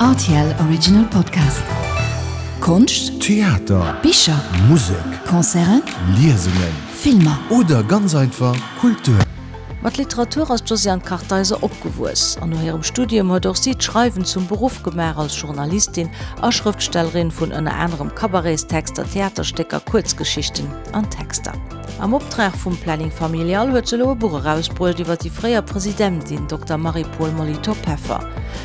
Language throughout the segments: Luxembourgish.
Rtl Original Podcast. Konscht, Theater, Bicher, Musek, Concerten, Liesungen, Filmer. Oder ganz einfach Kultur. Mat Literatur ass d'Josiane Kartheiser opgewuess an no hirem Studium huet och si d'Schreiwen zum Beruff gemaach als Journalistin a Schrëftstellerin vun ënner anerem Cabaretstexter, Theaterstécker, Kuerzgeschichten an Texter. Am Optrag vum Planning Familial huet se elo e Buch erausbruecht iwwer déi fréier Presidentin Dokter Marie-Paule Molitor-Peffer.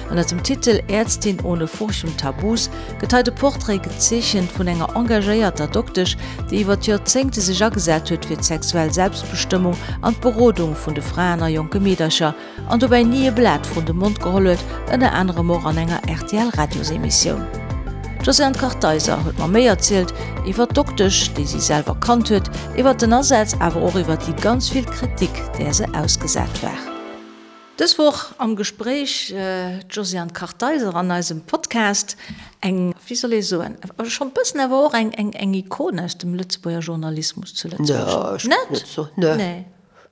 Ënner dem Titel Ärztin ohne Furcht und Tabus gëtt hei de Portrait gezeechent vun enger engagéierter Doktesch, déi iwwer d'Joerzéngte sech agesat huet fir d'sexuell Selbstbestëmmung an d'Berodung vun de Fraen a jonke Meedercher. An dobäi ni e Blat vrun de Mond geholl huet, ënner anerem och an enger RTL-Radiosemissioun. D'Josiane Kartheiser huet mer méi erzielt iwwer d'Doktesch, déi si selwer kannt huet, iwwer den Asaz, awer och iwwer déi ganz vill Kritik, där se ausgesat war. Dës Woch am Gespréich d'Josiane Kartheiser an eisem Podcast. Eng, wéi soll ee soen, schonn e bëssen awer och eng Ikon aus dem Lëtzebuerger Journalismus zu Lëtzebuerg. Net? Nee.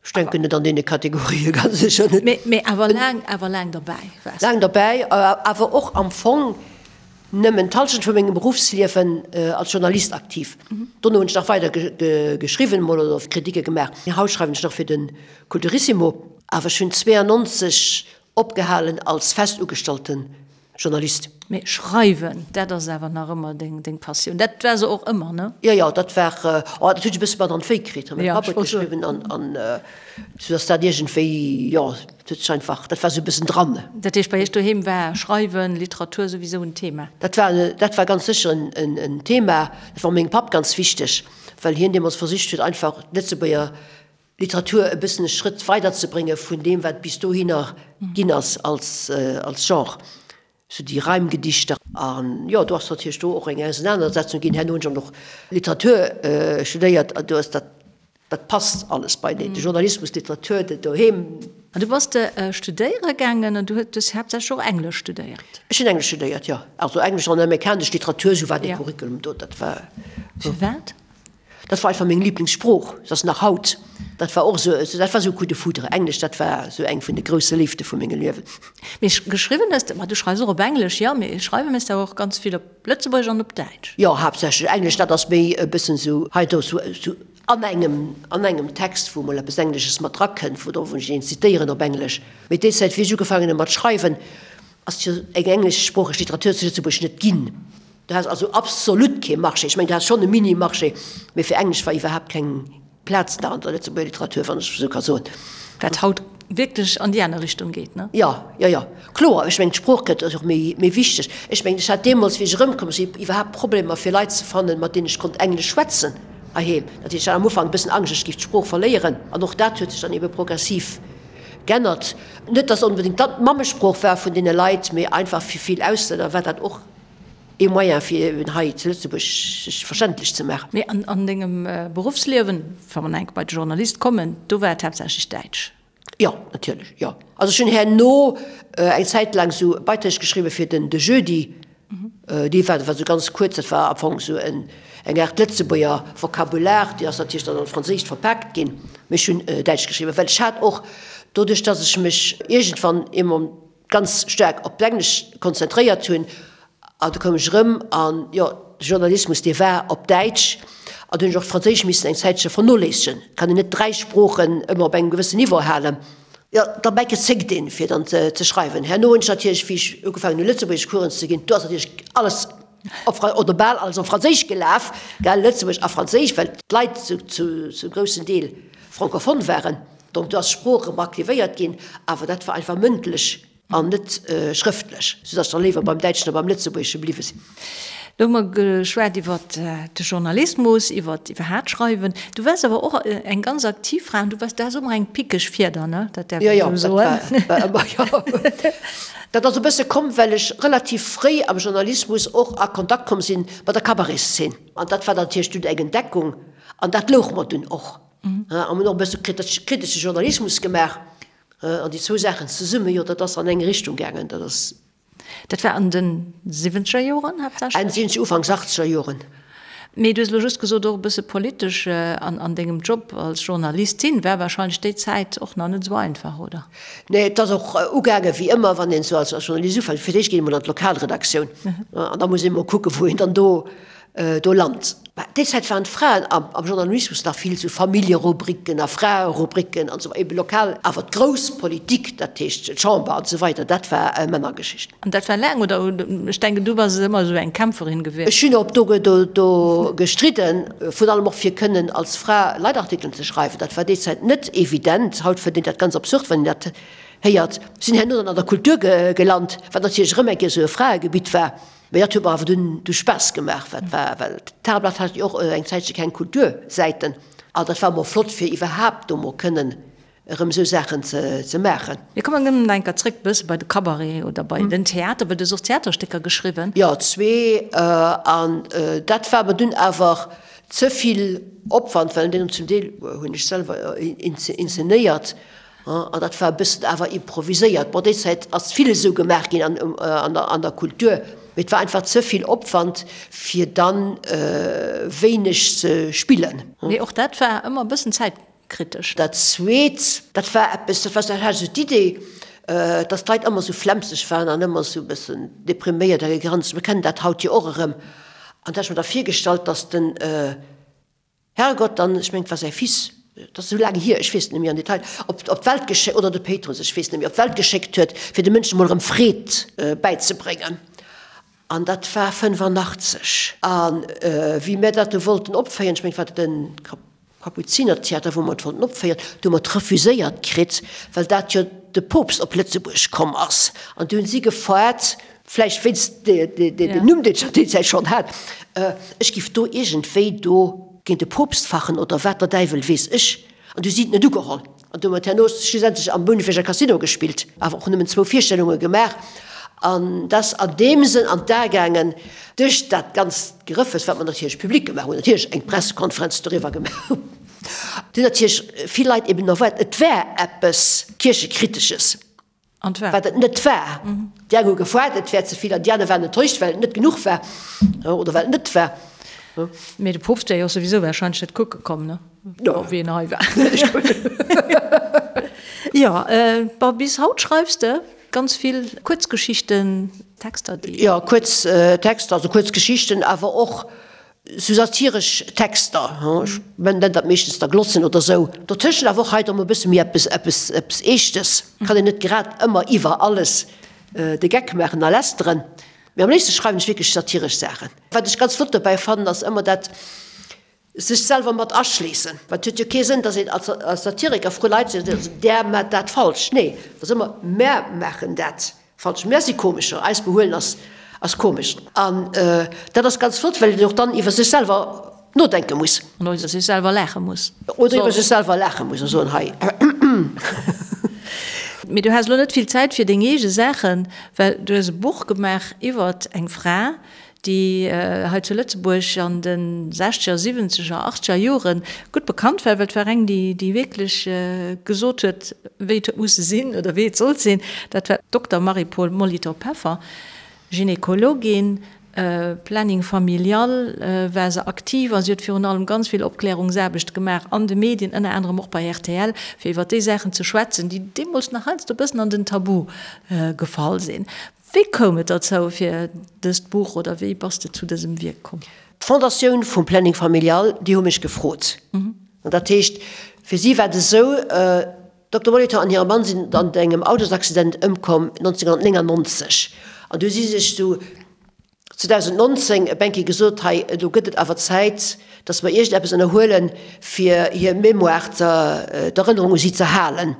Ech denken net an deene Kategorië, ganz sécher net. Mee awer laang, awer laang derbäi waars de. Laang derbäi, awer och am Fong nëmmen d'Hallschent vu mengem Beruffsliewen als Journalist aktiv. Dono hunn ech nach weider geschriwwen emol oder Kritike gemaach. Haut schreiwen ech nach fir de Kulturissimo. Awer ech hunn 92 opgehalen als fest ugestallte Journalist. Mee schreiwen, dat ass awer nach ëmmer deng Passioun. Dat war se och ëmmer, ne? Jo, jo, dat war, oh, dat hunn ech e bësse mat an d'Wéi kritt. Mäi Papp huet geschriwwen an, an sou ass dat iergendwéi, jo, dat huet sech einfach, dat war sou e bëssen dran. Dat heescht, bei iech doheem war Schreiwen, Literatur souwisou en Thema? Dat war, dat war ganz sécher en, en Thema. Dat war mengem Papp ganz wichteg, well hien deemools versicht huet, einfach d'Lëtzebuerger Literatur e bëssen e Schrëtt weider ze brénge vun deem, wat bis dohinner ginn ass als Genre, sou déi Reimgedichter. An jo, do ass natierlech do och eng Ausenanersetzung ginn. Herno hunn ech och nach Literatur studéiert an do ass dat, dat passt alles beieneen, de Journalismus, d'Literatur, dat doheem. An du bass de studéiere gaangen an du hues haaptsächlech och Englesch studéiert? Ech hunn Englesch studéiert, jo. Also Englesch an amerikanesch Literatur, sou war dee Curriculum do. Dat war. Firwat? Dat war einfach meng Lieblingssprooch, se ass nach haut. Dat war och esou, dat war esou e Coup de foudre. Englesch, dat war esou eng vun de grousse Léifte vu mengem Liewen. Mee geschriwwen hues de, ma du schreifs och op Englesch, jo, mee schreiwe méchs de awer och ganz vill op Lëtzebuergesch an op Däitsch. Jo, haaptsächlech Englesch, dat ass méi e bëssen esou hei do esou an engem, an engem Text, wou mol eppes Englesches mat drakënnt, wou wou ech een zitéieren op Englesch. Mee déi Zäit, wéi ech ugefaangen hu mat schreiwen, ass jo eng engleschsproocheg Literatur zu Lëtzebuerg net ginn. Du has also absolut kee Marché. Ech mengen, du has schonn e Mini-Marché, mee fir Englesch war iwwerhaapt keng Plaz nach an der Lëtzebuerger Literatur, wann ech esou ka soen. Wat haut wierklech an déi aner Richtung geet, ne? Jo, jo, jo, kloer. Ech mengen, d'Sprooch gëtt och méi, méi wichteg. Ech mengen, ech hat deemools, wéi ech erëmkomm sinn, iwwerhaapt Problemer, fir Leit ze fannen, mat deenen ech konnt Englesch schwätzen heiheem. Dat heescht, ech hat am Ufank e bëssen Angscht, ech géif d'Sprooch verléieren. An och dat huet sech dann ebe progressiv g'ännert. Net, dass onbedéngt dat d'Mammesprooch war vun deene Leit, mee einfach fir vill Auslänner war dat och ee Moyen fir eben hei zu Lëtzebuerg sech verständlech ze maachen. Mee an dengem Beruffsliewen, wa mer nach eng Kéier bei de Journalist kommen, do war et haaptsächlech Däitsch? Jo, natierlech, jo. Also ech hunn herno eng Zäit laang esou Beiträg geschriwwe fir den De Jeudi. Dee war war esou ganz kuerz, dat war am Fong esou en eng Aart Lëtzebuerger Vokabular, déi ass natierlech dann an d'Franséischt verpaakt ginn. Mee ech hunn Däitsch geschriwwen, well ech hat och doduerch, datt ech mech iergendwann eemol ganz staark op d'Englesch konzentréiert hunn an du koum ech erëm an, jo, de Journalismus, dee war op Däitsch an du hunn ech och d'Franséisch missen eng Zäitche vernoléissegen. Et kann een net 3 Sproochen ëmmer op engem gewëssen Niveau halen. Jo, derbäi gezéckt een, fir dann ze schreiwen. Herno hunn ech natierlech, wéi ech ugefaangen hunn, Lëtzebuergeschcoursen ze ginn, do ass natierlech alles op Fra-, oder bal alles op Franséisch gelaf, gell, Lëtzebuergesch a Franséisch, well d'Leit zu, zu, zum groussen Deel francophone waren. Donc do ass d'Sprooch erëm aktivéiert ginn, awer dat war einfach mëndlech an net schrëftlech, soudatt ech da léiwer beim Däitschen a beim Lëtzebuergesche bliwwe sinn. Lo hu mer geschwat iwwer de Journalismus, iwwer iwwerhaat Schreiwen. Du waars awer och eng ganz aktiv Fra an du waars, du has och ëmmer eng pickeg Fieder, ne? Dat däerf een esou soen. Jo, jo, dat war ëmmer, jo. Dat ass e bësse komm, well ech relativ fréi am Journalismus och a Kontakt komm sinn mat der Cabaretszeen. An dat war natierlech dunn eng Entdeckung an dat louch mer dunn och. A mir hunn och e bësse kritesche Journalismus gemaach. An déi zwou Saachen zesummen, jo, dat ass an eng Richtung gaangen. Dat ass. Dat war an de siwwenzeger Joren haaptsächlech? Enn siwwenzeger, Ufanks achtzeger Joren. Mee du hues elo just gesot, och e bësse politesch an dengem Job als Journalistin war wahrscheinlech déi Zäit och nach net esou einfach, oder? Nee, et ass och ugaange wéi ëmmer, wann een esou als Journalist ufänkt. Fir d'éischt geet een emol an d'Lokalredaktioun an da muss een emol kucken, wou een dann do do lant. Mä déi Zäit waren d'Fraen am Journalismus nach vill esou Familljerubriken a Fraerubriken an esou, ebe lokal. Awer d'grouss Politik, dat heescht d'Chamber an esou weider, dat war Männergeschicht. An dat war laang, oder? Ech denken, du bass ëmmer esou eng Kämpferin gewiescht. Ech hunn och do do gestridden, virun allem och fir kënnen als Fra Leitartikelen ze schreiwen. Dat war déi Zäit net evident. Haut fënnt een dat ganz absurd, wann een dat héiert. Sinn herno dann an der Kultur gelant, wat natierlech erëm eng Kéier esou e Fraegebitt war. Mee dat huet mer awer dunn du Spaass gemaach, wat war, well d'Tageblatt hat jo och eng Zäitche keng Kultursäiten. An dat war mol flott, fir iwwerhaapt do mol kënnen erëm esou Saachen ze maachen. Mir kommen erëm nach eng Kéier zréck e bësse bei de Cabaret oder bei den Theater, well du hues och Theaterstécker geschriwwen. Jo, zwee. An dat war mer dunn awer ze vill Opwand, well deen zum Deel hunn ech selwer inzenéiert. An dat war e bëssen awer improviséiert. Bon, déi Zäit ass vill esou gemaach ginn an der Kultur, mee et war einfach ze vill Opwand, fir dann wéineg ze spillen. Mee och dat war ëmmer e bëssen zäitkritesch. Dat Zweet, dat war eppes, dat war dat hat esou d'Idee, dass d'Leit ëmmer esou flemmseg waren an ëmmer esou e bëssen depriméiert a gegranzt. Mir kennen dat haut jo och erëm. An da hat ech mer da virgestallt, dass den Herrgott, dann, ech mengen, et war säi Fils, et ass esou laang hier, ech weess et net méi am Detail, op op d'Welt geschéckt, oder de Péitrus, ech weess net méi, op d'Welt geschéckt huet, fir de Mënschen emol erëm Freed bäizebréngen. An dat war 85. A wéi mir dat do wollten opféieren, ech mengen, et war de Kapuzinertheater, wou mer et wollten opféieren, do hu mer et refuséiert kritt, well dat jo de Poopst op Lëtzebuerg komm ass. An du hunn si gefaart, vläicht wéinst dem Numm, deen ech an deer Zäit schonn hat, ech giff do iergendwéi do géint de Poopst fachen oder wat der Däiwel weess ech. An du si et net ugeholl. An du hu mer et herno schlussendlech am Bouneweger Casino gespillt, awer och nëmmen zwou Virstellunge gemaach. An dat ass an deem Sënn an d'A gaangen, duerch dat ganzt Gerëffes, wat mer natierlech public gemaach hunn, natierlech eng Pressekonferenz doriwwer gemaach hunn, hunn natierlech vill Leit eben erwaart, et wär eppes Kierchekritesches. An et war. Wat et net war. Déi eng hu gefoart, et wär ze vill, an déi aner waren enttäuscht, well et net genuch war oder well et net war. Mee de Poopst wär jo och souwisou warscheinlech net kucke komm, ne? Jo. Wéi en hei war. Jo, bon, bis haut schreifs de ganz vill Kuerzgeschichten, Texter, déi. Jo, kuerz Texter, also kuerz Geschichten, awer och Sou satiresch Texter, ech nennen dat meeschtens da Glossen oder sou. Dotëschent awer och hei da mol e bësse méi eppes, eppes, eppes Eeschtes. Kann een net grad ëmmer iwwer alles de Geck maachen a lästeren. Mee am léifste schreiwen ech wierklech satiresch Saachen. Wat ech ganz flott dobäi fannen, ass ëmmer dat sech selwer mat aschléissen. Well et huet jo kee Sënn, datt een als Satiriker vru Leit seet, där maacht dat falsch. Nee, et ass ëmmer, mär maachen dat. Falsch, mär si Komescher, eis Behuelen ass ass komesch. An dat ass ganz flott, well een och dann iwwer sech selwer nodenke muss. An och iwwer sech selwer laache muss. Oder iwwer sech selwer laache muss a soen, hei. Mee du has elo net vill Zäit fir deng eege Saachen, well du hues e Buch gemaach iwwert eng Fra, déi hei zu Lëtzebuerg an de sechzeger, siwwenzeger, achtzeger Jore gutt bekannt war, well et war eng, déi déi wierklech gesot huet, wéi et huet musse sinn oder wéi et sollt sinn. Dat war d'Dokter Marie-Paule Molitor-Peffer, Gynekologin, Planning familial war se aktiv a si huet virun allem ganz vill Opklärungsaarbecht gemaach an de Medien, ënner anerem och bei rtl, fir iwwer déi Saachen ze schwätzen, déi deemools nach heiansdo e bëssen an den Tabu gefall sinn. Wéi koum et derzou fir dëst Buch oder wéi bass de zu dësem Wierk komm? D'Fondatioun vum Planning Familial, déi hu mech gefrot. An dat heescht, fir si war et esou, Dokter Molitor an hire Mann sinn an engem Autosaccident ëmkomm 1999. An du hu si sech du 2019 e Benki gesot, hei elo gëtt et awer Zäit, datt mer iergendeppes ënnerhuelen, fir hir Mémoire, d'Erënnerung u si ze halen.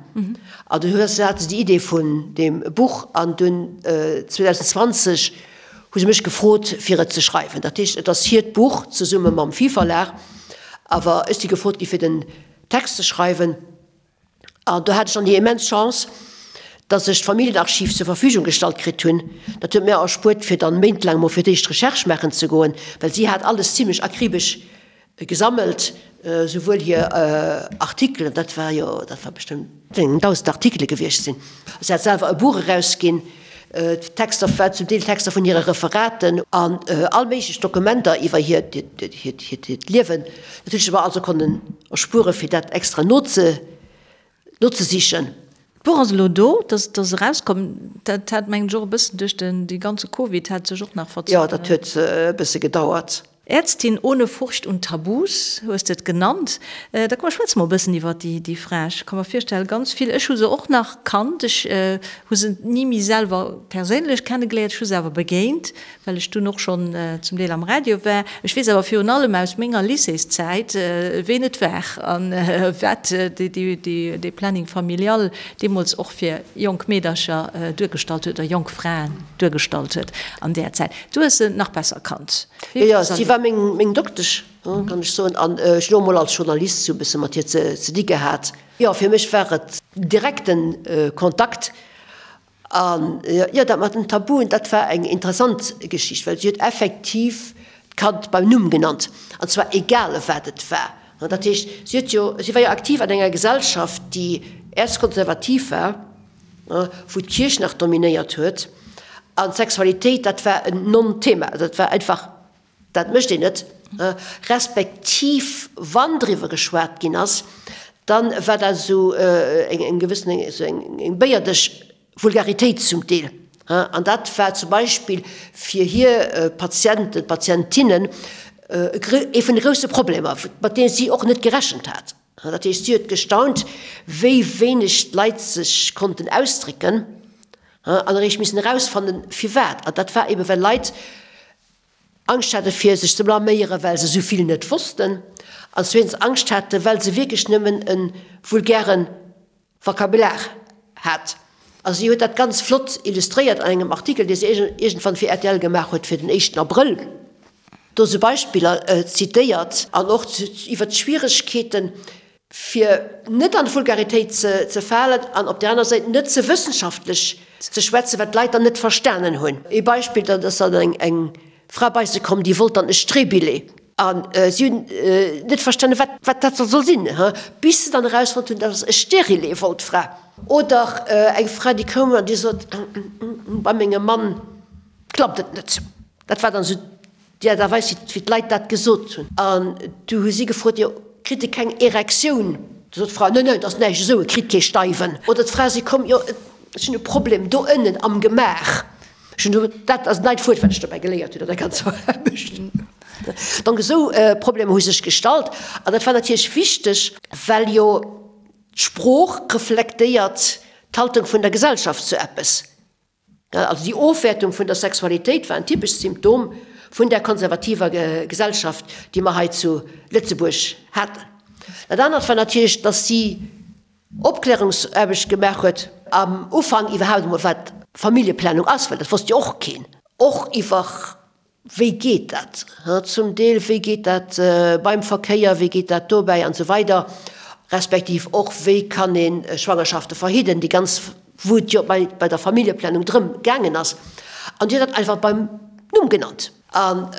An du hues, hate se déi Idee vun deem Buch an dunn 2020 hu se mech gefrot, fir et ze schreiwen. Dat heescht, et ass hiert Buch zesumme mam Phi Verlag, awer ech si gefrot gi fir den Text ze schreiwen. An do hat ech dann déi immens Chance, dass ech d'Familljenarchiv zur Verfügung gestallt kritt hunn. Dat huet mir erspuert, fir dann méintlaang mol fir d'éischt Recherche maachen ze goen, well si hat alles zimlech akribesch gesammelt, souwuel hir Artikelen, dat war jo, dat war bestëmmt eng 1.000 Artikele gewiescht sinn. Si hat selwer e Buch erausginn. Texter, war zum Deel Texter vun hire Referaten an all méiglech Dokumenter iwwer hiert hiert Liewen natierlech mer also konnen erspuere fir dat extra noze nozesichen. D'Buch ass elo do, dat ass erauskomm. Dat hat mengen ech och e bëssen duerch den dee ganze Covid hat sech och nach verzögert. Jo, dat huet e bësse gedauert. Ärztin ohne Furcht und Tabus hues de et genannt. Da komm mer schwätze mol e bëssen iwwer déi Fra. Ech ka mer virstellen, ganz vill, ech hu se och nach kannt, ech hu se ni méi selwer perséinlech kennegeléiert, ech hu se awer begéint, well ech dunn och schonn zum Deel am Radio war. Ech weess awer virun allem aus menger Lycéeszäit, ween et war a wat dee Planning familial deemools och fir jonk Meedercher duergestallt huet oder jonk Fraen duergestallt huet an där Zäit. Du hues se nach besser kannt. Jo, jo, si war meng Doktesch, kann ech soen, an ech hunn och emol als Journalist sou e bësse mat hir ze di gehat. Jo, fir mech war et direkte Kontakt. An jo, dat mat den Tabuen, dat war eng interessant Geschicht, well si huet effektiv d'Kand beim Numm genannt, an zwar egal wat et war. Dat heescht, si huet jo, si war jo aktiv an enger Gesellschaft, déi erzkonservativ war, wou d'Kierch nach dominéiert huet, an d'Sexualitéit, dat war en Non-Thema, dat war einfach, dat mécht een net, respektiv wann driwwer geschwat ginn ass, dann war dat esou eng gewëssen, esou eng béierdeg Vulgaritéit zum Deel. An dat war zum Beispill fir hir Patienten, Patientinnen ee vun de grousse Problemer, mat deene si och net gerechent hat. Dat heescht, si huet gestaunt, wéi wéineg d'Leit sech konnten ausdrécken an eréischt missen erausfannen, firwat. An dat war ebe well Leit Angscht hate fir sech ze blaméieren, well se esou vill net wossten, an zweetens Angscht hate well se wierklech nëmmen e vulgäre Vokabular hat. A si huet dat ganz flott illustréiert an engem Artikel, dee se iergendwann fir rtl gemaach huet fir den éischten Abrëll. Do sou Beispiller zitéiert an och iwwer d'Schwieregkeeten, fir net an d'Vulgaritéit ze falen an op där aner Säit net ze wëssenschaftlech ze schwätzen, wat d'Leit dann net verstanen hunn. Ee Beispill, dat ass dann eng Fra bei se komm, déi wollt dann e Streebillet a si hunn net verstanen, wat wat dat soll sinn, bis se dann erausfonnt hunn, dat ass e Stérilet wollt d'Fra. Oder eng Fra, déi koum an déi sot, Bei mengem Mann klappt et net. Dat war dann esou déi Aart a Weis, wéi d'Leit dat gesot hunn. An du hu si gefrot, Jo, kritt e keng Erektioun? Du sot d'Fra, Neen, neen, et ass näischt esou, e kritt kee Steiwen. Oder d'Fra si komm, Jo, ech hunn e Problem do ënnen am Gemaach. Ech hunn do, dat ass en neit Wuert, wat ech dobäi geléiert hunn an der ganzer Aarbecht. Donc esou Problemer hu sech gestallt. An dat war natierlech wichteg, well jo d'Sprooch reflektéiert d'Haltung vun der Gesellschaft zu eppes. Also déi Ofwäertung vun der Sexualitéit war en typescht Symptom vun där konservativer Gesellschaft, déi mer hei zu Lëtzebuerg haten. Dat anert war natierlech, datt si Opklärungsaarbecht gemaach huet, am Ufank iwwerhaapt emol wat Familljeplanung ass, well dat wosst jo och keen, och iwwer Wéi geet dat zum Deel, wéi geet dat beim Verkéier, wéi geet dat dobäi an esou weider, respektiv och wéi kann ee Schwangerschafte verhidden, déi ganz, wou et jo bei der Familljeplanung drëm gaangen ass. An déi huet dat einfach beim Numm genannt. An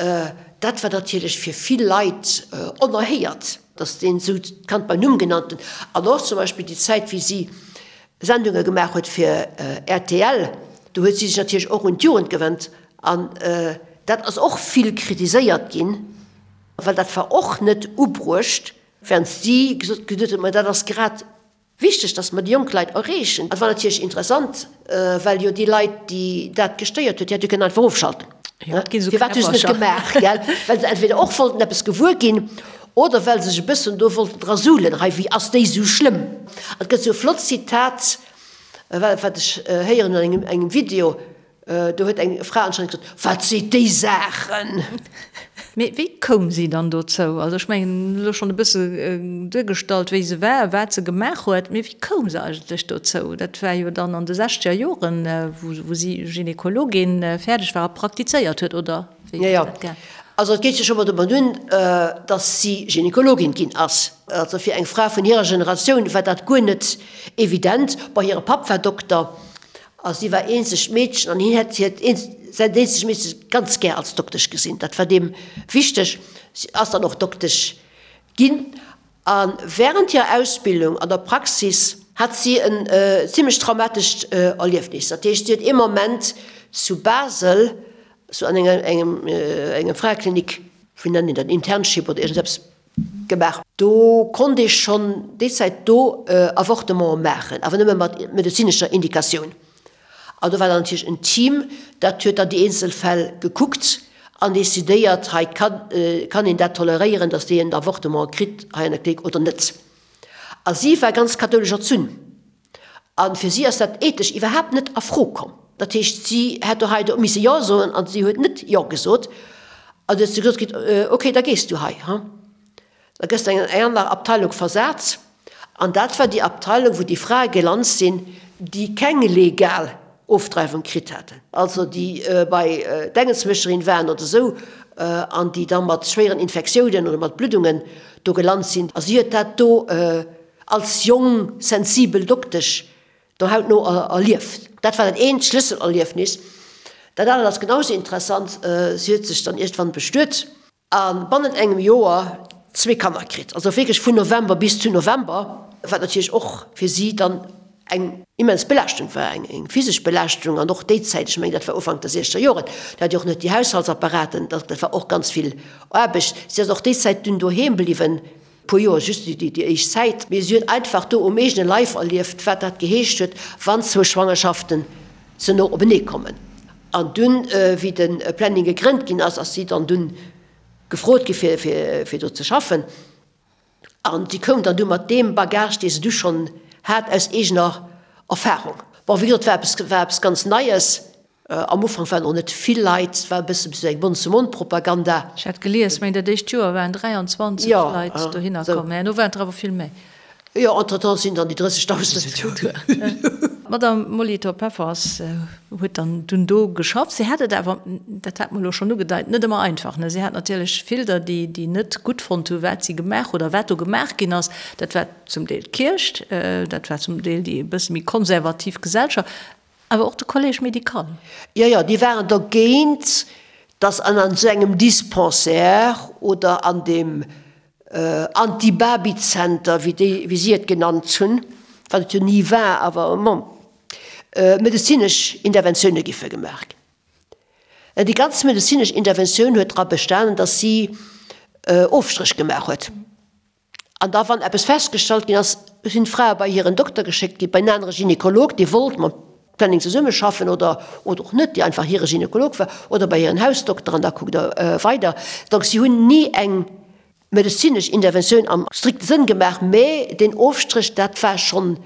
dat war natierlech fir vill Leit onerhéiert, datt een esou d'Kand beim Numm genannt huet. An och zum Beispill déi Zäit, wéi si Sendunge gemaach huet fir rtl, do huet si sech natierlech och un d'Jugend gewennt An dat ass och vill kritiséiert ginn, well dat war och net ubruecht, während si gesot huet, ma dat ass grad wichteg, dass mer déi jonk Leit erreechen. Dat war natierlech interessant, well jo déi Leit, déi dat gestéiert huet, déi hätte jo kënnen einfach ofschalten. Firwat hu se net gemaach? Gell? Well se entweder och wollten eppes gewuer ginn oder well se sech e bëssen do wollten dra suhlen, hei, wéi ass déi esou schlëmm? An et gëtt esou e flott Zitat, wat ech héieren hunn an engem Video, Do huet eng Fra anscheinend gesot, Wat seet déi Saachen? Mee wéi koum si dann dozou? Also ech mengen, elo schonn e bësse duergestallt, wéi se war, wat se gemaach huet, mee wéi koum se eigentlech dozou? Dat war jo dann an de sechzeger Joren, wou si Gynekologin fäerdeg war a praktizéiert huet, oder wéi huet dat gaang? Also et geet jo scho mol domat un, datt si Gynekologin ginn ass. Also fir eng Fra vun hirer Generatioun war dat guer net evident. Bon, hire Papp war Dokter A si war eenzegt Meedchen an hien hätt hiert säin eenzegt Meedchen ganz gär als Doktesch gesinn. Dat war deem wichteg. Si ass dann och Doktesch ginn. A während hirer Ausbildung an der Praxis. hat si en zimlech traumatescht Erliefnis. Dat heescht, si huet ee Moment zu Basel, sou an enger engem enger Fraeklinik, wéi nennt een dat, Internship oder iergendeppes gemaach. Do konnt ee schonn déi Zäit do Avortementen maachen, awer nëmme mat medezinescher Indikatioun. An do war dann natierlech en Team, dat huet dann déi eenzel Fäll gekuckt an decidéiert, hei kann kann een dat toleréieren, datt déi en Avortement kritt hei an der Klinik oder net. A si war ganz kathoulesch erzunn a fir si ass dat ethesch iwwerhaapt net a Fro komm. Dat heescht, si hätt do hei do misse Jo soen a si huet net Jo gesot. An du huet se gesot kritt, Ok, da gees du hei, ha. Da gëss de an eng aner Abteilung versat. An dat war déi Abteilung, wou déi Frae gelant sinn, déi keng legal Ofdreiwung kritt haten, also déi bei d'Engelsmécherin waren oder esou, an déi da mat schwéieren Infektiounen oder mat Bluddungen do gelant sinn. A si huet dat do als jong, sensibel Doktesch do hautno erlieft. Dat war dat eent Schlësselerliefnis. Dat anert ass genau esou interessant, Si huet sech dann iergendwann bestuet. A bannent engem Joer zwee Kanner kritt, also wierklech vun November bis zu November, wat natierlech och fir si dann eng immens Belaaschtung war, eng physesch Belaaschtung an och déi Zäit, ech mengen dat war Ufank der siechzeger Joren, do hat Dir och net déi Haushaltsapparaten, dat war och ganz vill Aarbecht. Si ass och déi Zäit dunn doheem bliwwen, puer Joer, just déi éischt Zäit, mee si huet einfach do um eegene Leif erlieft, wat dat geheescht huet, wann zwou Schwangerschaften ze no openee kommen. An dunn, wéi de Planning gegrënnt ginn ass, ass si dann dunn gefrot gi fir, fir do ze schaffen. An si koum dann du mat deem Bagage, dee se du schonn hat aus eegener Erfahrung. Bon, wéi gesot, war eppes, war eppes ganz Neies. Am Ufank waren och net vill Leit, et war e bësse sou eng Mond-zu-Mond-Propaganda. Ech hat gelies, mengen dat éischt Joer waren 23 Leit dohinner komm, mä herno waren et der awer vill méi. Jo, entretemps sinn dann déi 30.000. D'Madame Molitor-Peffers huet dann dunn do geschafft. Si hat et awer, dat hat mer elo schonn ugedeit, net ëmmer einfach. Si hat natierlech vill der, déi net gutt fonnt hu wat si gemaach oder wat do gemaach ginn ass. Dat war zum Deel d'Kierch, dat war zum Deel déi e bësse méi konservativ Gesellschaft. Awer och de Collège médical. Jo, jo, déi waren dergéint, dass an esou engem Dispensaire oder an deem Anti-Baby-Zenter, wéi déi, wéi si et genannt hunn, wat et jo ni war, awer bon, medezinesch Interventioune giffe gemaach ginn. Déi ganz medezinesch Interventioun huet dra bestanen, dass si Ofstréch gemaach huet. An da wann eppes festgestallt ginn ass, sinn d'Frae bei hiren Dokter geschéckt ginn, bei en anere Gynekolog, dee wollt mam Planning zesummeschaffen oder oder och net, dee einfach hire Gynekolog war, oder bei hiren Hausdokter an da kuckt Der weider. Donc si hunn ni eng medezinesch Interventioun am strikte Sënn gemaach, mä deen Ofstréch, dat war schonn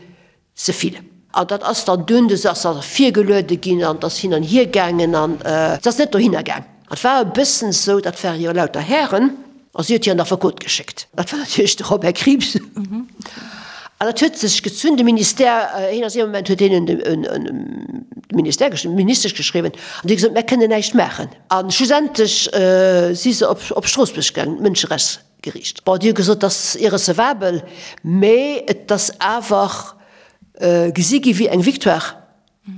Ze vill. An dat ass dann dunn, du ass da virgeluede ginn an et ass hin an hier gaangen an et ass net dohinner gaang. An et war e bëssen esou, dat ware jo lauter Hären, a si huet hiren Affekot geschéckt. Dat war natierlech de Robert Krieps. An dat huet sech gezunn. De Ministère, hien ass ee Moment, huet hien un de Ministère geschriwwen, d'Ministesch geschriwwen an déi huet gesot, mär kënnen näischt maachen. A schlussendlech si se op Stroossbuerg gaangen, d'Mënscherechts. Geriicht. Bon, Dir hutt gesot, dat ass irrecevabel, mä et ass awer gesi gi wéi eng Victoire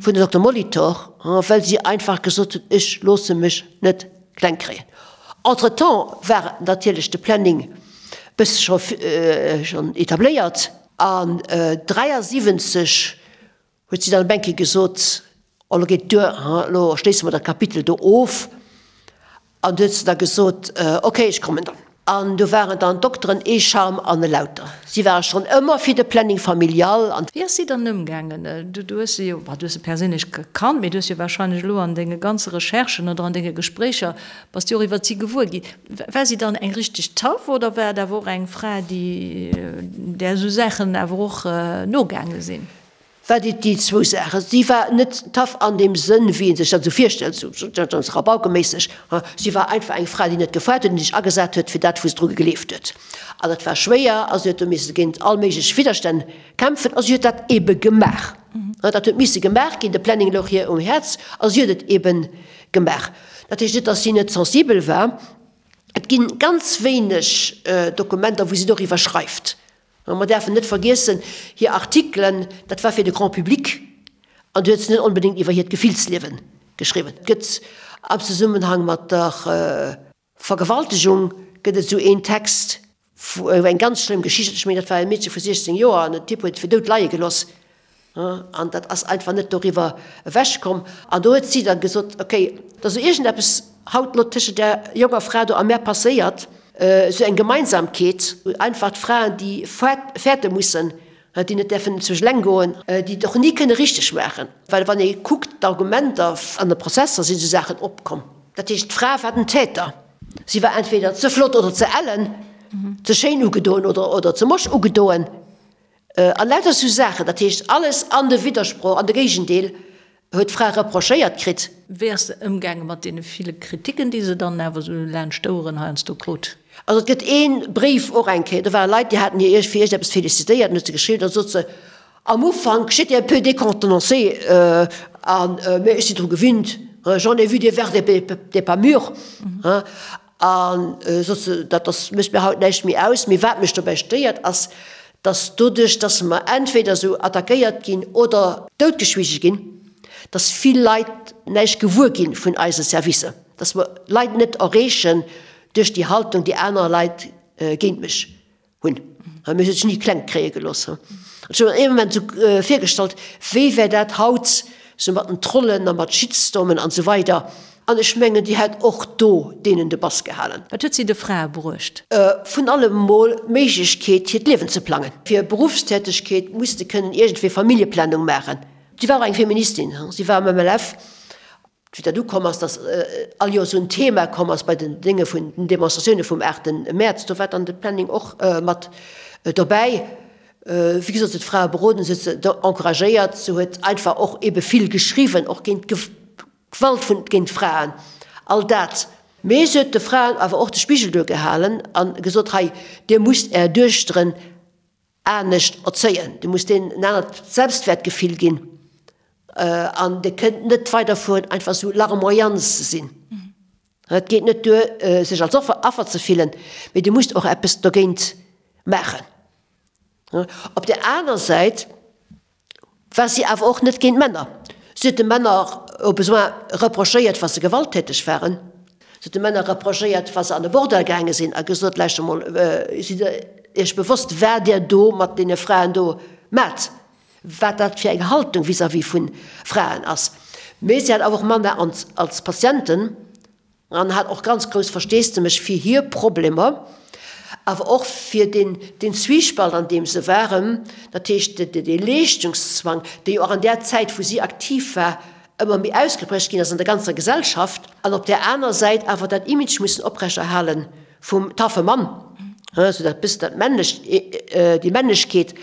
vun der Dokter Molitor, well si einfach gesot huet, ech loosse mech net kleng kréien. Entretemps war natierlech de Planning bësse scho schonn etabléiert an 73 huet si dann op eng Kéier gesot, oh lo geet duer, elo schléisse mer dat Kapitel do of. An du huet se da gesot, ok, ech kommen dann. An do waren dann d'Dokteren ee Charme an e Lauter. Si ware schonn ëmmer fir de Planning familial an. Wéi ass si dann ëmgaangen? Du hues se jo, bah, du hues se perséinlech gekannt, mee du hues jo warscheinlech elo an denge ganze Recherchen oder an denge Gespréicher, bass du och iwwert si gewuer ginn. War si dann eng richteg Taff oder war et awer och eng Fra, déi, där esou Saachen awer och nogaange sinn? War déi déi zwou Saachen. Si war net tough an deem Sënn, wéi ee sech dat esou virstellt, esou ganz rabaukeméisseg. Si war einfach eng Fra, déi net gefaart huet an déi sech agesat huet fir dat, wou se dru gegleeft huet. An dat war schwéier a si huet do misse géint all méiglech Widderstänn kämpfen a si huet dat eebe gemaach. Dat huet misse gemaach ginn, de Planning louch hir um Häerz a si huet et eebe gemaach. Dat heescht net, datt si net sensibel war. Et gi ganz wéineg Dokumenter, wou si doriwwer schreift. Mer däerfen net vergiessen, hir Artikelen, dat war fir de Grand public an do huet se net onbedéngt iwwer hiert Gefillsliewe geschriwwen. Et gëtt am Zesummenhang mat der Vergewaltegung gëtt et esou een Text. Eng ganz schlëmm Geschicht, ech mengen dat war e Meedche vu 16 Joer an den Typ huet et fir dout leie geloss an dat ass einfach net doriwwer ewech komm. An do huet si da gesot, ok, et ass elo iergendeppes haut elo tëschent där jonker Fra do a mär passéiert, esou eng Gemeinsamkeet, einfach d'Fraen déi fäerte mussen, déi net däerfen zu eleng goen, déi et och ni kënne richteg maachen, well wann ee kuckt d'Argumenter an de Prozesser sinn esou Saachen opkomm. Dat heescht d'Fra war den Täter. Si war entweder ze flott oder ze ellen, ze schéin ugedoen oder ze mosch ugedoen an lauter esou Saachen. Dat heescht alles an de Widdersproch, an de Géigendeel huet d'Fra reprochéiert kritt. Wéi ass se ëmgaange mat deene ville Kriticken, déi se dann awer esou laanscht d'Oueren heiansdo krut? Also et gëtt ee Bréif och eng Kéier, do ware Leit, déi haten hir fir iergendeppes félicitéiert an huet se geschriwwen, da sot se, Am Ufank, j'étais un peu décontenancée, an, mä ech sinn dru gewinnt, j'en ai vu des vertes et des pas mûres, an sot se, dat ass, mécht mir haut näischt méi aus. Mee wat mech dobäi stéiert, ass, dass doduerch, dass mer entweder esou attackéiert ginn oder doutgeschwiege ginn, dass vill Leit näischt gewuer gi vun eise Servicer, dass mer Leit net erreechen duerch déi Haltung, déi aner Leit géint mech hunn. Mir hu sech ni kleng kréie gelooss. Ech hu mir ee Moment esou virgestallt, wéi wär dat haut sou mat den Trollen a mat Shitstormen an esou weider. An ech mengen, déi hätt och do deenen de Bass gehalen. Wat huet si de Frae bruecht? Vun allem mol d'Méiglechkeet, hiert Liewen ze plangen. Fir Beruffstätegkeet musste kënnen iergendwéi Familljeplanung maachen. Si war och eng Feministin, si war am MLF. Wéi dat ukomm ass, datt all Joer esou en Thema komm ass bei den Dénge vun den Demonstratioune vum 8 Mäerz, do war dann de Planning och mat dobäi. Wéi gesot, se huet d'Frae beroden, se huet se encouragéiert, se huet einfach och ebe vill geschriwwen, och géint d'Gewalt vun géint d'Fraen, all dat. Mee se huet de Fraen awer och de Spigel duergehalen a gesot, Hei, dir musst är Duechteren anescht erzéien, dir musst deenen en anert Selbstwäertgefill ginn an dir kënnt net weiderfueren einfach esou larmoyant ze sinn. Et geet net duer, sech als Affer ze fillen, mee dir musst och eppes dogéint maachen. Op där aner Säit war si awer och net géint Männer. Si huet de Männer au besoin reprochéiert, wa se gewalttäteg waren. Si huet de Männer reprochéiert, wa se an e Bordell gaange sinn a gesot, Lauschtert emol, sidd Der Iech bewosst, wat Dir do mat deene Fraen do maacht, wat dat fir eng Haltung vis-à-vis vu Fraen ass. Mee si hat awer och Männer als Patienten. An hat och ganz grouss Versteesdemech fir hir Problemer, awer och fir deen, deen Zwiespalt, an deem se waren, dat heescht dee Leeschtungszwang, dee jo och an där Zäit, wou si aktiv war, ëmmer méi ausgeprägt ginn ass an der ganzer Gesellschaft, an op där aner Säit awer dat Image mussen oprechterhale vum taffe Mann, esou dat bëssen dat männlecht, déi Männlechkeet,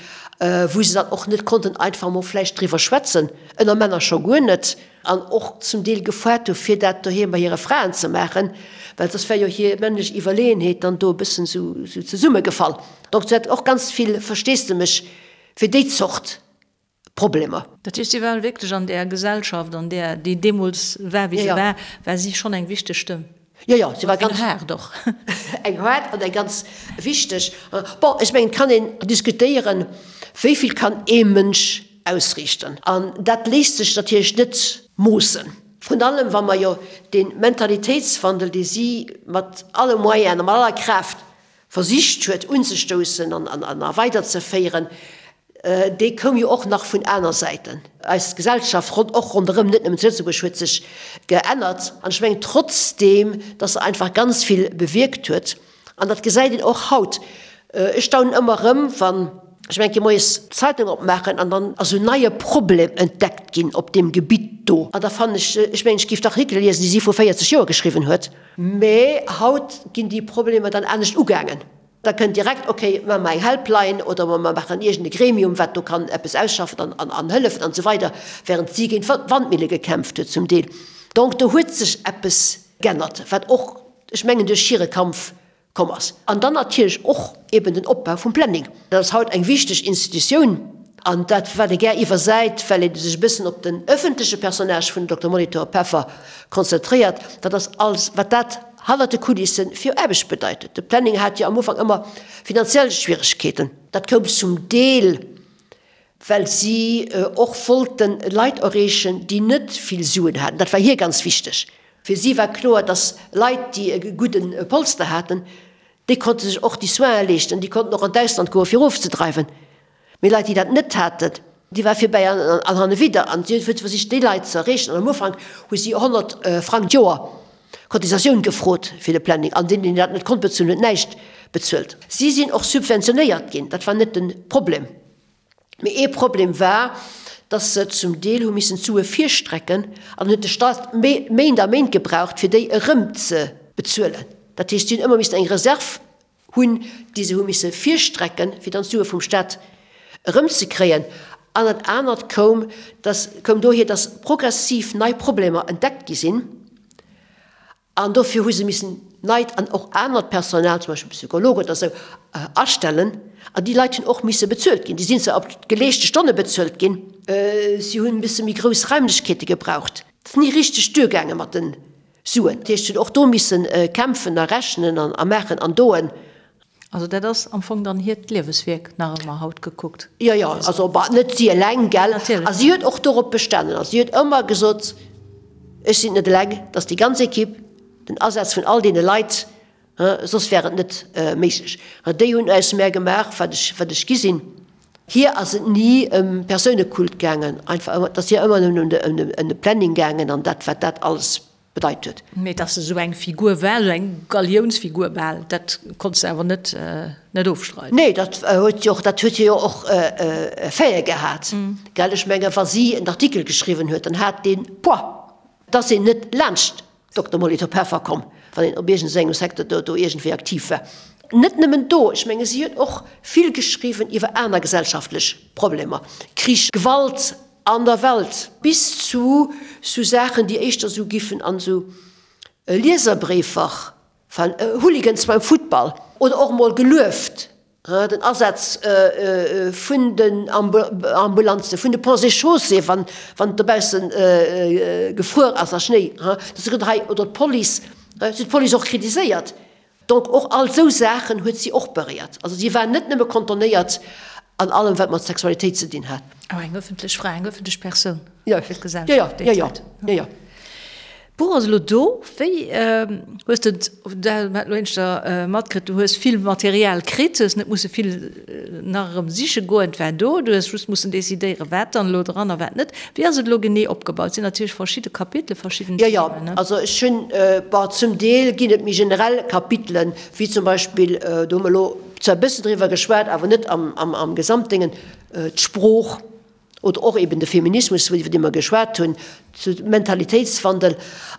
wou se dann och net konnten einfach emol vläicht driwwer schwätzen, ënner Männer scho guer net. An och zum Deel gefoart hu fir dat doheem bei hire Fraen ze maachen, well soss wär jo hir männlech Iwwerleeënheet dann do e bëssen esou zesummegefall. Donc se hat och ganz vill Versteesdemech fir déi Zort Problemer. Dat heescht, si war wierklech an där Gesellschaft, an där, déi deemools war, wéi se war, war si schonn eng wichteg Stëmm. Jo, jo, si war ganz. Eng haart och. Eng haart an eng ganz wichteg. Bon, ech mengen, et kann een diskutéieren, wéi vill kann ee Mënsch ausriichten. An dat léisst sech natierlech net moossen. Vrun allem, wa mer jo dee Mentalitéitswandel, dee si mat alle Moyenen a mat aller Kraaft versicht huet unzestoussen an a weiderzeféieren, dee koum jo och nach vun aner Säiten. Eis Gesellschaft, och ronderëm, net nëmmen zu Lëtzebuerg, huet sech geännert. An ech mengen trotzdeem, dass se einfach ganz vill bewierkt huet, an dat gesäit een och haut, ech staunen ëmmer erëm, wann ech eng Kéier moies d'Zeitung opmaachen an dann ass en neie Problem entdeckt ginn op deem Gebitt do. An da fannen ech, ech mengen, ech géif d'Artikele liesen, déi si vru 40 Joer geschriwwen huet. Mä haut ginn déi Problemer dann anescht ugaangen. Da kënnt direkt, okay, maache mer eng Helpline oder mer maachen iergend e Gremium, wat do kann eppes ausschaffen an hëllefen an esou weider, während si géint Wandmille gekämpft huet zum Deel. Donc do huet sech eppes g'ännert, wat och, ech mengen, duerch hire Kampf komm ass. An dann natierlech och eben den Opbau vum Planning. Dat ass haut eng wichteg Institutioun an dat, wat ee gär iwwersäit, well ee sech e bëssen op den ëffentleche Personnage vun Dokter Molitor Peffer konzentréiert, dat ass alles, wat dat hannert de Kulisse fir Aarbecht bedeit huet. De Planning hat jo am Ufank ëmmer finanziell Schwieregkeeten. Dat koum zum Deel, well si och wollte Leit erreechen, déi net vill Suen haten. Dat war hir ganz wichteg. Fir si war kloer, dass Leit, déi e gudde Polster haten, Déi konnte sech och déi Soinen leeschten, déi konnten och an d'Ausland goe fir ofzedreiwen. Mee Leit, déi dat net haten, déi war virbäi an hannewidder. An si huet versicht, déi Leit ze erreechen. An am Ufank hu si 100 Frang d'Joer Cotisatioun gefrot fir de Planning. An deen, deen dat net konnt bezuelen, huet näischt bezuelt. Si sinn och subventionéiert ginn, dat war net de Problem. Mee ee Problem war, dass se zum Deel hu missen d'Sue virstrecken an huet de Stat Méint a Méint gebraucht, fir déi erëm ze bezuelen. Dat heescht, si hunn ëmmer missen eng Reserv hunn, déi se hu misse virstrecken, fir dann d'Sue vum Stat erëmzekréien. An dat anert koum, dass, koum dohier, dass progressiv nei Problemer entdeckt gi sinn. An dofir hu se missen neit an och anert Personal, zum Beispill Psychologen oder esou, astellen. An déi Leit hunn och misse bezuelt ginn. Déi sinn zwar op geleeschte Stonne bezuelt ginn. Si hunn e bësse méi grouss Raimlechkeete gebraucht. Et ass ni richteg duergaange mat de Suen. Dat heescht, si hunn och do misse kämpfen a rechnen a maachen an doen. Also dat ass am Fong dann hiert Lieweswierk nach ëmmer, haut gekuckt. Jo, jo, also bah, net si eleng, gell. Natierlech. A si huet och dorop bestanen. A si huet ëmmer gesot, Ech sinn et net eleng, et ass déi ganz Equipe, den Asaz vun all deene Leit, soss wär et net méiglech. Déi hunn aus mär gemaach, wat ech, wat ech gi sinn. Hir ass et ni ëm Persounekult gaangen, einfach ëmmer, et ass hir ëmmer nëmmen ëm de Planning gaangen an dat, wat dat alles bedeit huet. Mee dass se esou eng Figur war, esou eng Galiounsfigur bal, dat konns de awer net net ofstreiden. Nee, dat huet jo och, dat huet hie jo och Effete gehat, gell. Ech menge wa si en Artikel geschriwwen huet, dann hat dee Poids. Et ass een net laanscht Dokter Molitor Peffer komm, wann een op iergendengem Secteur do do iergendwéi aktiv war. Net nëmmen do, ech menge si huet och vill geschriwwen iwwer aner gesellschaftlech Problemer, Krich, Gewalt An der Welt, bis zu sou Saachen, déi éischter sou giffen an sou Lieserbréifer falen, Hooligans beim Futtball, oder och mol gelueft, den Asaz vun den Ambulanzen, vun de Ponts et Chaussées, wann et dobausse gefruer ass a Schnéi, dass se gesot hunn, hei, oder d'Police, si huet d'Police och kritiséiert. Donc och all esou Saachen huet si och beréiert. Also si war net nëmme kontonéiert an allem wat mat Sexualitéit ze dinn hat. Awer eng ëffentlech Fra, eng ëffentlech Persoun fir d'Gesellschaft déi Zäit. Jo, jo. D'Buch ass elo do. Wéi hues de et, dat hat elo éischter matkritt, du hues vill Material kritt, hues net musse vill nach erëm siche goen, et war do, du hues just mussen decidéieren, wat dann elo dran a wat net. Wéi ass et elo genee opgebaut? Et sinn natierlech verschidde Kapitele, verschidden Themen, ne? Jo, jo. Also ech hunn, bon, zum Deel ginn et méi generell Kapitelen, wéi zum Beispill, do hu mer elo zwar e bëssen driwwer geschwat, awer net am Gesamtdéngen, d'Sprooch oder och eben de Feminismus, iwwer dee mer geschwat hunn, de Mentalitéitswandel.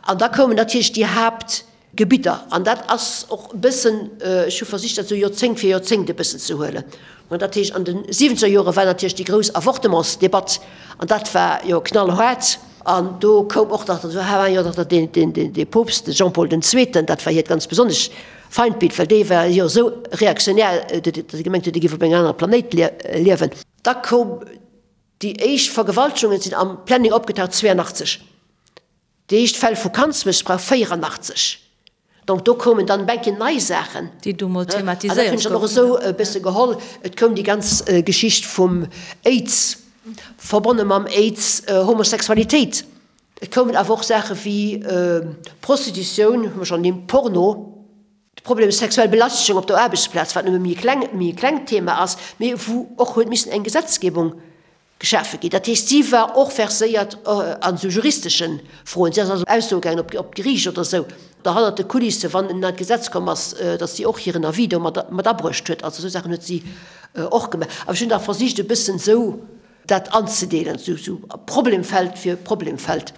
An da koumen natierlech déi Haapt. Gebidder. An dat ass och e bëssen, ech hu versicht dat esou Joerzéngt fir Joerzéngt e bëssen ze huelen. An dat heescht, an de siwwenzeger Jore war natierlech déi grouss Avortementsdebatt an dat war jo knallhaart. An do koum och nach, do war jo nach deen, deen, dee Poopst, de Jean-Paul den Zweeten, dat war hiert ganz besonnesch Feindbild, well dee war jo esou reaktionär, datt e gemengt huet, e géif op engem anere Planéit liewen. Da koum déi éischt Vergewaltegungen sinn am Planning opgetaucht 82. Déi éischt Fäll vu Kandsmëssbrauch 84. Donc do koumen dann eng Kéier nei Saachen. Déi do mol thematiséiert goufen. An dat hunn ech dann och esou e bësse geholl. Et koum déi ganz Geschicht vum Aids, verbonne mam Aids Homosexualitéit. Et koumen awer och Saache wéi Prostitutioun, hu mer schonn ernimmt, Porno, de Problem sexuell Belastegung op der Aarbechtsplaz, wat nëmme méi e kleng, méi e klengt Thema ass, mee wou och huet missen eng Gesetzgebung Geschafe ginn. Dat heescht, si war och verséiert an esou juristesche Froen. Si ass also Aussoe gaangen op op d'Geriicht oder esou, da hannert de Kulisse, wann en neit Gesetz komm ass, datt si och hiren Avis do mat mat abruecht huet. Also esou Saachen huet si och gemaach. Awer ech hunn da versicht e bëssen esou dat anzedeelen, esou esou Problemfeld fir Problemfeld.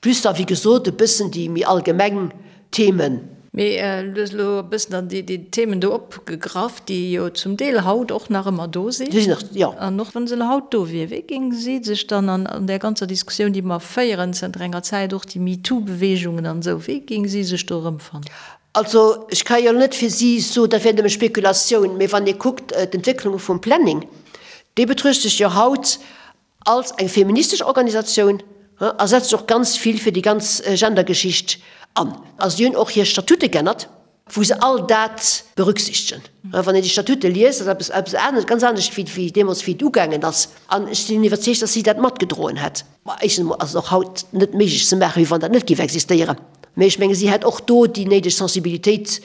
Plus da wéi gesot e bëssen déi méi allgemeng Themen. Mee du hues elo e bëssen dann déi Themen do opgegraff, déi jo zum Deel haut och nach ëmmer do sinn. Déi sinn nach, jo. An och wa se elo haut do wier, wéi géing si sech dann an där ganzer Diskussioun, déi mer féieren zënter enger Zäit, och déi MeToo-Beweegungen an esou, wéi géing si sech do erëmfannen? Also ech ka jo net fir si soen, dat wär nëmme Spekulatioun, mee wann ee kuckt d'Entwécklung vum Planning, dee betruecht sech jo haut Als eng feministesch Organisatioun a setzt sech och ganz vill fir déi ganz Gendergeschicht an. A si hunn och hir Statute g'ännert, wou se all dat berücksichtegen. Wann een déi Statute liest, ass eppes eppes anescht, ganz anescht wéi wéi deemools wéi et ugaangen ass. An ech sinn iwwerzeegt, datt si dat matgedroen hätt. Ma éischtens emol ass et och haut net méiglech ze maachen, wéi wann dat net géif existéieren. Mee ech menge si hätt och do déi néideg Sensibilitéit.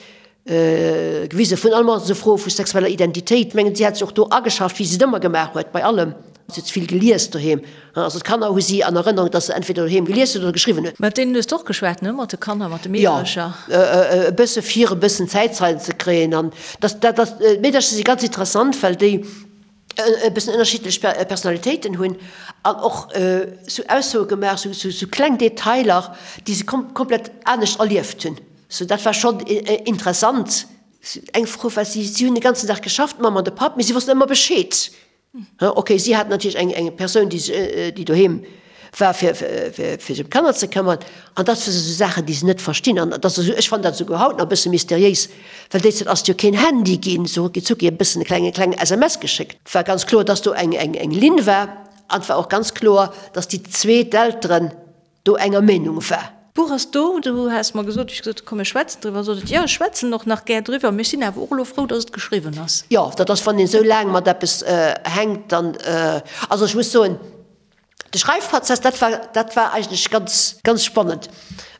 Gewise vun allem esou Froe vu sexueller Identitéit. Mengen, si hat sech och do ageschafft, wéi si et ëmmer gemaach huet, bei allem. Si huet vill gelies doheem. Also d'Kanner hu si an Erënnerung, datt se entweder doheem gelies huet oder geschriwwen huet. Mat deenen hues de och geschwat, ne? Mat de Kanner, mat de Meedercher? Jo, e bësse fir e bëssen Zäitzeien ze kréien. An dat, dat ass, d'Meedercher si ganz interessant, well déi e bëssen ënnerschiddlech Personalitéiten hunn an och sou Aussoe gemaach, sou, sou kleng Detailer, déi se komplett anescht erlieft hunn. Sou, dat war schonn interessant. Eng Fro war, si hunn de ganzen Dag geschafft, d'Mamm an de Papp, mee si wossten ëmmer Bescheed. Ok, si haten natierlech eng, eng Persoun, déi, déi doheem war, fir, fir sech ëm d'Kanner ze këmmern. An dat si sou Saachen, déi se net verstinn. An dat ass esou, ech fannen dat esouguer haut nach e bësse mysteriéis, well déi Zäit ass et jo keen Handy ginn, sou rucki zucki e bëssen e klenge, kleng SMS geschéckt. Et war ganz kloer, dass do eng, eng, eng Linn war. An et war och ganz kloer, dass déi zwee, d'Elteren, do enger Meenung war. D'Buch ass do, du has mer gesot, wéi ech gesot hu komm mir schwätzen driwwer, sot et, jo ech schwätzen och nach gär driwwer, mee ech sinn awer och elo frou, datt et geschriwwen ass. Jo, dat ass, wann een esou laang mat eppes hänkt, dann, also ech muss soen, de Schreifprozess, dat war, dat war eigentlech ganz, ganz spannend.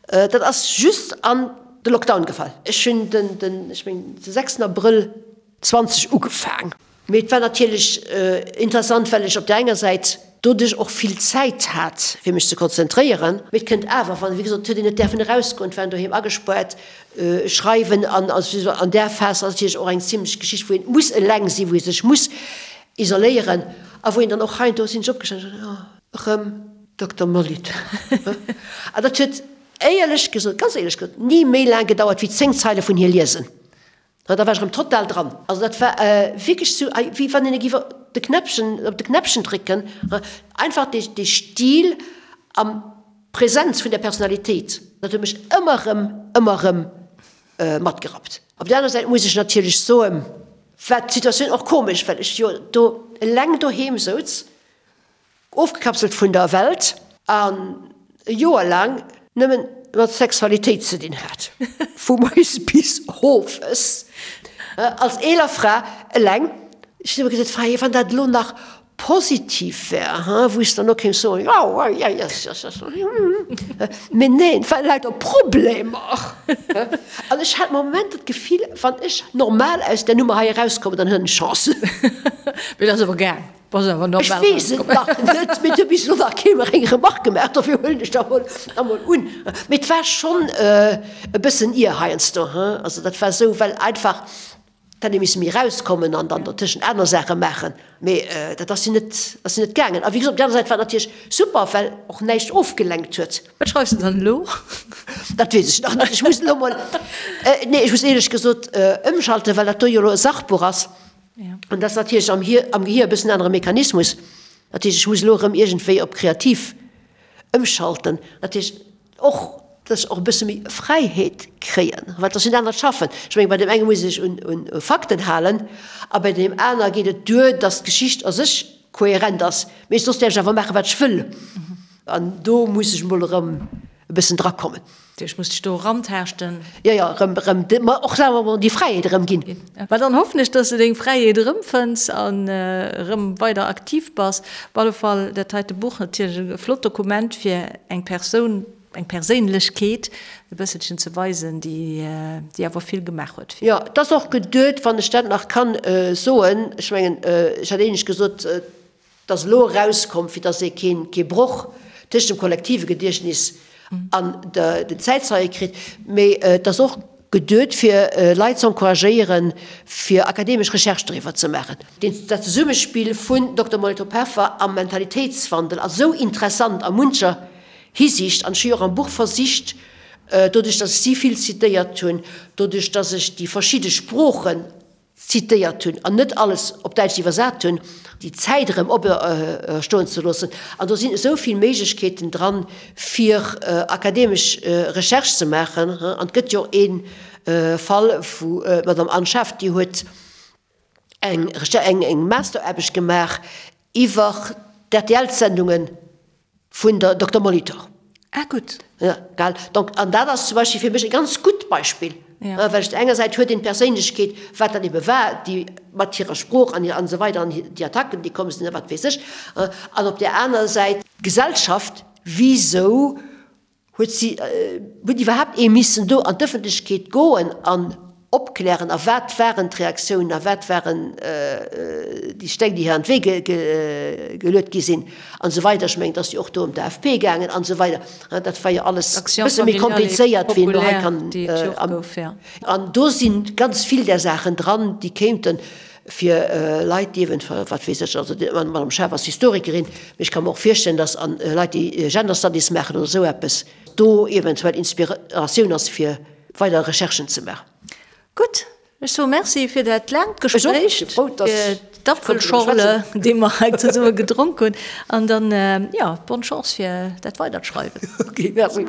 Dat ass just an de Lockdown gefall. Ech hunn den, den, ech mengen de sechsten Abrëll 20 ugefaang. Mee et war natierlech interessant, well ech op där enger Säit doduerch och vill Zäit hat, fir mech ze konzentréieren. Mee et kënnt awer, wann, wéi gesot, et huet een net däerfen erausgoen, et war een doheem agespaart, schreiwen an an där Phas ass natierlech och eng zimlech Geschicht, wou een muss eleng sinn, wou ee sech muss isoléieren a wou een dann och heiansdo sinn ech opgestanen an hunn gesot, oh, erëm Dokter Molitor. An dat huet éierlech gesot, ganz éierlech gesot, ni méi laang gedauert wéi 10 Zeile vun hir liesen. Da war ech erëm total dran. Also dat war wierklech sou, wéi wann een géif de Knäppchen, op de Knäppchen drécken. Einfach dee, dee Stil an d'Präsenz vun der Personalitéit, dat huet mech ëmmer erëm, ëmmer erëm matgerappt. Op der aner Säit muss ech natierlech soen, war d'Situatioun och komesch, well ech jo do eleng doheem souz. Ofgekapselt vun der Welt an e Joer laang nëmmen mat Sexualitéit ze dinn hat, vu moies bis owes, als eeler Fra eleng. Ech hunn ëmmer gesot, Freier, wann dat elo nach positiv wär, wou ech dann och kéint soen, jo, mee neen, et waren lauter Problemer. An ech hat Momenter d'Gefill, wann ech normal aus där Nummer hei erauskommen, dann hunn ech Chance. Mee dat ass awer gaang. Ech weess et nach net, mee et huet bis elo nach kee mer eng Remarque gemaach, dofir huelen ech dat emol un. Mee et war schonn e bëssen ier heiansdo, hein. Also dat war esou, well einfach et hätt ee misse méi erauskommen an dann dertëschent aner Saache maachen. Mee dat ass jo net, ass jo net gaangen. A wéi gesot, op där aner Säit war et natierlech super, well och näischt ofgelenkt huet. Wat schreifs de dann elo? Dat weess ech nach net. Ech muss elo mol, nee, ech muss éierlech gesot ëmschalten, well dat do jo elo e Sachbuch ass. An dat ass natierlech am Hier, am Gehir e bëssen anere Mechanismus. Dat heescht, ech muss elo erëm iergendwéi op kreativ ëmschalten. Dat heescht och, dass ech och e bësse méi Fräiheet kréien, well et ass jo en anert Schaffen. Ech mengen, bei deem enge muss ech un, un Fakten halen a bei deem aner geet et duer, dass d'Geschicht a sech kohärent ass. Mee soss däerf ech awer maachen, wat ech wëll. An do muss ech emol erëm e bëssen drakommen. Ech muss dech do erantaaschten. Jo, jo, erëm, erëm, ma och selwer emol déi Fräiheet erëm ginn. Mä dann hoffen ech, dass de deng Fräiheet erëmfënns an erëm weider aktiv bass. Op alle Fall dat heite Buch natierlech e flott Dokument fir eng Persoun, eng Perséinlechkeet e bësselchen ze weisen, déi, déi awer vill gemaach huet fir. Jo, et ass och geduet, wann ech dat nach kann soen, ech mengen, ech hat éinescht gesot, Et ass elo erauskomm, fir datt ee kee Broch tëscht dem kollektive Gediechtnis an den Zäitzeie kritt, mee et ass och geduet, fir Leit ze encouragéieren, fir akademesch Recherche doriwwer ze maachen. Dat Zesummespill vun Dokter Molitor Peffer a Mentalitéitswandel ass esou interessant a muncher Hisiicht, an ech hu jo och am Buch versicht, doduerch datt ech si vill zitéiert hunn, doduerch datt ech déi verschidde Sproochen zitéiert hunn an net alles op Däitsch iwwersat hunn, déi Zäit erëm opstoen ze loossen. An do sinn esou vill Méiglechkeeten dran, fir akademesch Recherche ze maachen. An et gëtt jo och ee Fall vu d'Madame Anne Schaaf, déi huet eng eng Masteraarbecht gemaach iwwer d'RTL-Sendungen Vun der Dokter Molitor. Ah, gutt. Ja, gell. Donc, an dat ass zum Beispill fir mech e ganz gutt Beispill. Ja. Well ech der enger Säit huet een d'Perséinlechkeet, wat dat ebe war, déi mat hirer Sprooch an an esou weider an déi Attacken, déi komm sinn a wat weess ech. An op där aner Säit d'Gesellschaft, wisou huet si, huet iwwerhaapt ee missen do an d'Ëffentlechkeet goen an. opklären a wat waren d'Reaktiounen a wat waren déi Steng, déi hir an d'Wee geluet gi sinn an esou weider. Ech mengen, et ass jo och do ëm d'AFP gaangen an esou weider. Dat war jo alles e bësse méi komplizéiert, wéi een elo hei kann. An do si ganz vill där Saachen dran, déi kéinten fir Leit, déi eventuell, wat weess ech, also d'Madame Schaaf ass Historikerin, mee ech ka mer och virstellen, datt Leit, déi Gender Studies maachen oder esou eppes, do eventuell Inspiratioun ass fir weider Recherchen ze maachen. Gutt, ech soe Merci fir dat laangt Gespréich, fir d'Apfelschorle, déi mer hei zesumme gedronk hunn, an dann, jo, bonne Chance fir dat weidert Schreiwen. Ok, merci.